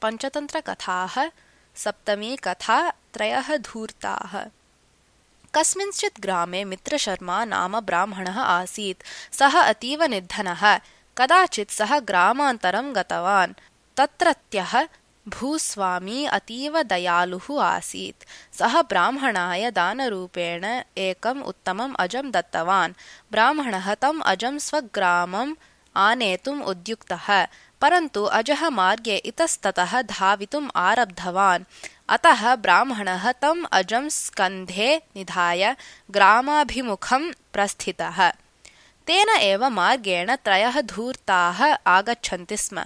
पञ्चतन्त्रकथाः। सप्तमी कथा त्रयः धूर्ताः। कस्मिंश्चित् ग्रामे मित्रशर्मा नाम ब्राह्मणः आसीत्। सः अतीव निर्धनः। कदाचित् सः ग्रामान्तरं गतवान्। तत्रत्यः भूस्वामी अतीव दयालुः आसीत्। सः ब्राह्मणाय दानरूपेण एकम् उत्तमम् अजं दत्तवान्। ब्राह्मणः तम् अजं स्वग्रामम् आनेतुम् उद्युक्तः, परन्तु अजः मार्गे इतस्ततः धावितुम् आरब्धवान्। अतः ब्राह्मणः तम् अजं स्कन्धे निधाय ग्रामाभिमुखं प्रस्थितः। तेन एव मार्गेण त्रयः धूर्ताः आगच्छन्ति स्म।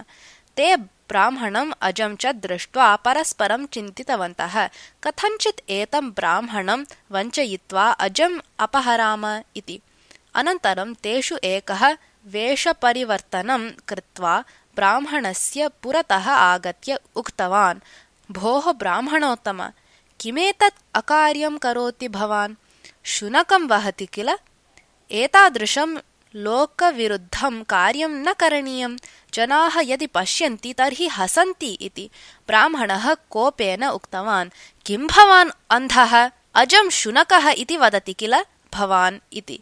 ते ब्राह्मणम् अजं च दृष्ट्वा परस्परं चिन्तितवन्तः, कथञ्चित् एतं ब्राह्मणं वञ्चयित्वा अजम् अपहराम इति। अनन्तरं तेषु एकः वेषपरिवर्तनं कृत्वा ब्राह्मणस्य पुरतः आगत्य उक्तवान्, भोः ब्राह्मणोत्तम, किमेतत् अकार्यं करोति भवान्? शुनकं वहति किल? एतादृशं लोकविरुद्धं कार्यं न करणीयं। जनाः यदि पश्यन्ति तर्हि हसन्ति इति। ब्राह्मणः कोपेन उक्तवान्, किं भवान् अन्धः? अजं शुनकः इति वदति किल भवान् इति।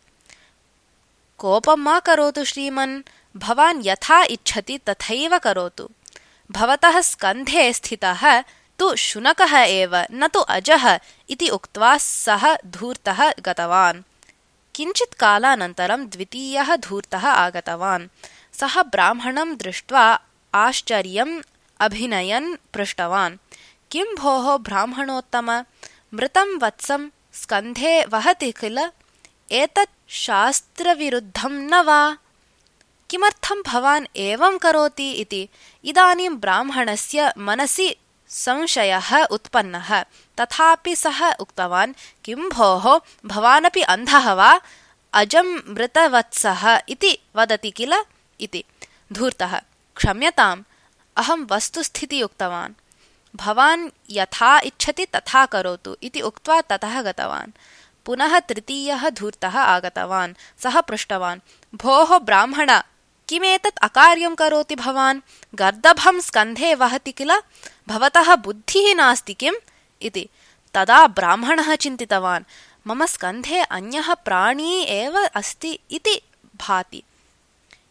कोपं मा करोतु श्रीमन्, भवान् यथा इच्छति तथैव करोतु। भवतः स्कन्धे स्थितः तु शुनकः एव, न तु अजः इति उक्त्वा सः धूर्तः गतवान्। किञ्चित् कालानन्तरं द्वितीयः धूर्तः आगतवान्। सः ब्राह्मणं दृष्ट्वा आश्चर्यम् अभिनयन् पृष्टवान्, किं भोः ब्राह्मणोत्तम, मृतं वत्सं स्कन्धे वहति किल? एतत् शास्त्रविरुद्धं न वा? किमर्थं भवान् एवं करोति इति। इदानीं ब्राह्मणस्य मनसि संशयः उत्पन्नः। तथापि सः उक्तवान्, किं भोः, भवानपि अन्धः वा? अजं मृतवत्सः इति वदति किल इति। धूर्तः, क्षम्यताम्, अहं वस्तुस्थिति उक्तवान्। भवान् यथा इच्छति तथा करोतु इति उक्त्वा ततः गतवान्। पुनः तृतीयः धूर्तः आगतवान्। सः पृष्टवान्, भोः ब्राह्मण, किमेतत् अकार्यं करोति भवान्? गर्दभं स्कन्धे वहति किल? भवतः बुद्धिः नास्ति किम् इति। तदा ब्राह्मणः चिन्तितवान्, मम स्कन्धे अन्यः प्राणी एव अस्ति इति भाति।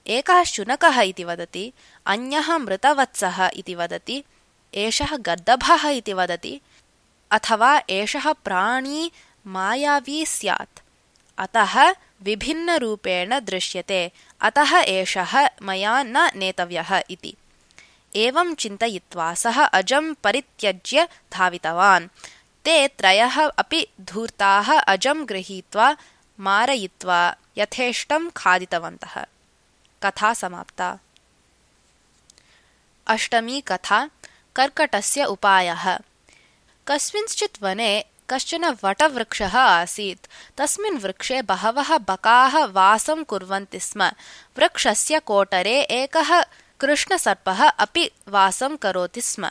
एकः शुनकः इति वदति, अन्यः मृतवत्सः इति वदति, एषः गर्दभः इति वदति, अथवा एषः प्राणी मायावी स्यात्। अतः विभिन्नरूपेण दृश्यते, अतः एषः मया न नेतव्यः इति। एवं चिन्तयित्वा सः अजं परित्यज्य धावितवान्। ते त्रयः अपि धूर्ताः अजं गृहीत्वा मारयित्वा यथेष्टं खादितवन्तः। कथा समाप्ता। अष्टमी कथा कर्कटस्य उपायः। कस्मिंश्चित् वने कश्चन वटवृक्षः आसीत्। तस्मिन् वृक्षे बहवः बकाः वासं कुर्वन्ति स्म। वृक्षस्य कोटरे एकः कृष्णसर्पः अपि वासं करोति स्म।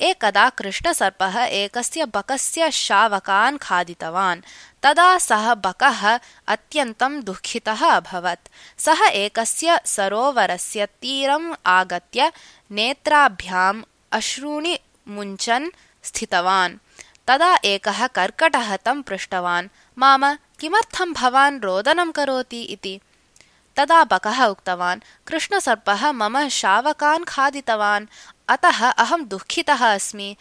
एकदा कृष्णसर्पः एकस्य बकस्य शावकान् खादितवान्। तदा सः बकः अत्यन्तं दुःखितः अभवत्। सः एकस्य सरोवरस्य तीरम् आगत्य नेत्राभ्याम् अश्रूणि मुञ्चन् स्थितवान्। तदा एकः कर्कटः तं पृष्टवान्, माम, किमर्थं भवान् रोदनं करोति इति। तदा बकः उक्तवान्, कृष्णसर्पः मम शावकान् खादितवान्, अतः अहं दुःखितः अस्मि।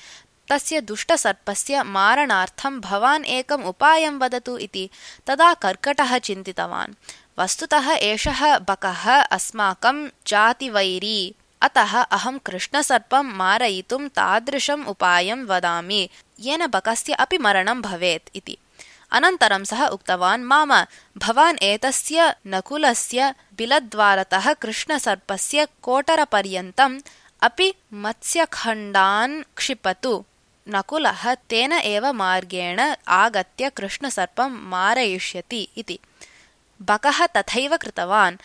तस्य दुष्टसर्पस्य मारणार्थं भवान् एकम् उपायं वदतु इति। तदा कर्कटः चिन्तितवान्, वस्तुतः एषः बकः अस्माकं जातिवैरी, अतः अहं कृष्णसर्पं मारयितुं तादृशम् उपायं वदामि येन बकस्य अपि मरणं भवेत् इति। अनन्तरं सः उक्तवान्, माम, भवान् एतस्य नकुलस्य बिलद्वारतः कृष्णसर्पस्य कोटरपर्यन्तम् अपि मत्स्यखण्डान् क्षिपतु। नकुलः तेन एव मार्गेण आगत्य कृष्णसर्पं मारयिष्यति इति। बकः तथैव कृतवान्।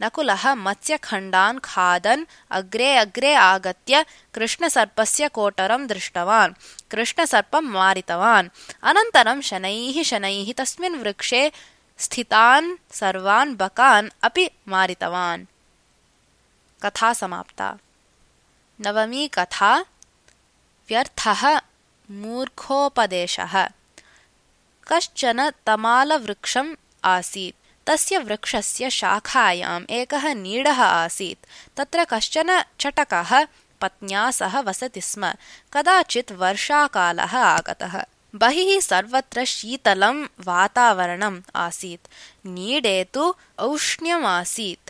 नकुलः मत्स्यखण्डान् खादन् अग्रे अग्रे आगत्य कृष्णसर्पस्य कोटरं दृष्टवान्। कृष्णसर्पं मारितवान्। अनन्तरं शनैः शनैः तस्मिन् वृक्षे स्थितान् सर्वान् बकान् अपि मारितवान्। कथा समाप्ता। नवमी कथा व्यर्थः मूर्खोपदेशः। कश्चन तमालवृक्षम् आसीत्। तस्य वृक्षस्य शाखायाम् एकः नीडः आसीत्। तत्र कश्चन चटकः पत्न्या सह वसति स्म। कदाचित् वर्षाकालः आगतः। बहिः सर्वत्र शीतलं वातावरणम् आसीत्। नीडे तु औष्ण्यमासीत्।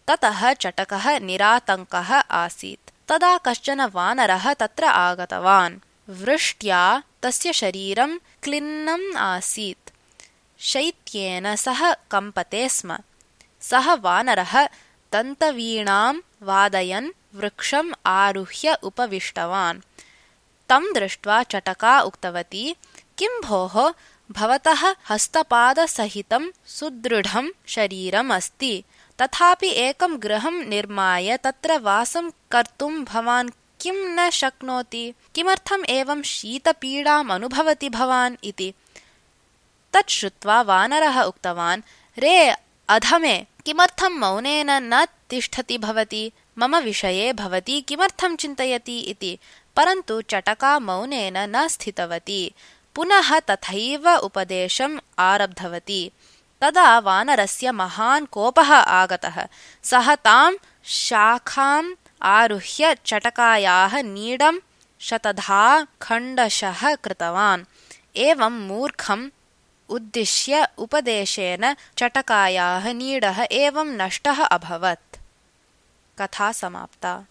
ततः चटकः निरातङ्कः आसीत्। तदा कश्चन वानरः तत्र आगतवान्। वृष्ट्या तस्य शरीरं क्लिन्नम् आसीत्। शैत्येन सः कम्पते स्म। सः वानरः दन्तवीणां वादयन् वृक्षम् आरुह्य उपविष्टवान्। तं दृष्ट्वा चटका उक्तवती, किं भोः, भवतः हस्तपादसहितं सुदृढं शरीरम् अस्ति, तथापि एकं गृहं निर्माय तत्र वासं कर्तुं भवान् किं न शक्नोति? किमर्थम् एवं शीतपीडाम् अनुभवति भवान् इति। तत् श्रुत्वा वानरः उक्तवान्, रे अधमे, किमर्थं मौनेन न तिष्ठति भवती? मम विषये भवती किमर्थं चिन्तयति इति। परन्तु चटका मौनेन न स्थितवती। पुनः तथैव उपदेशम् आरब्धवती। तदा वानरस्य महान् कोपः आगतः। सः तां शाखाम् आरुह्य चटकायाः नीडं शतधा खण्डशः कृतवान्। एवं मूर्खम् उद्दिश्य उपदेशेन चटकायाः नीडः एवं नष्टः अभवत्। कथा समाप्ता।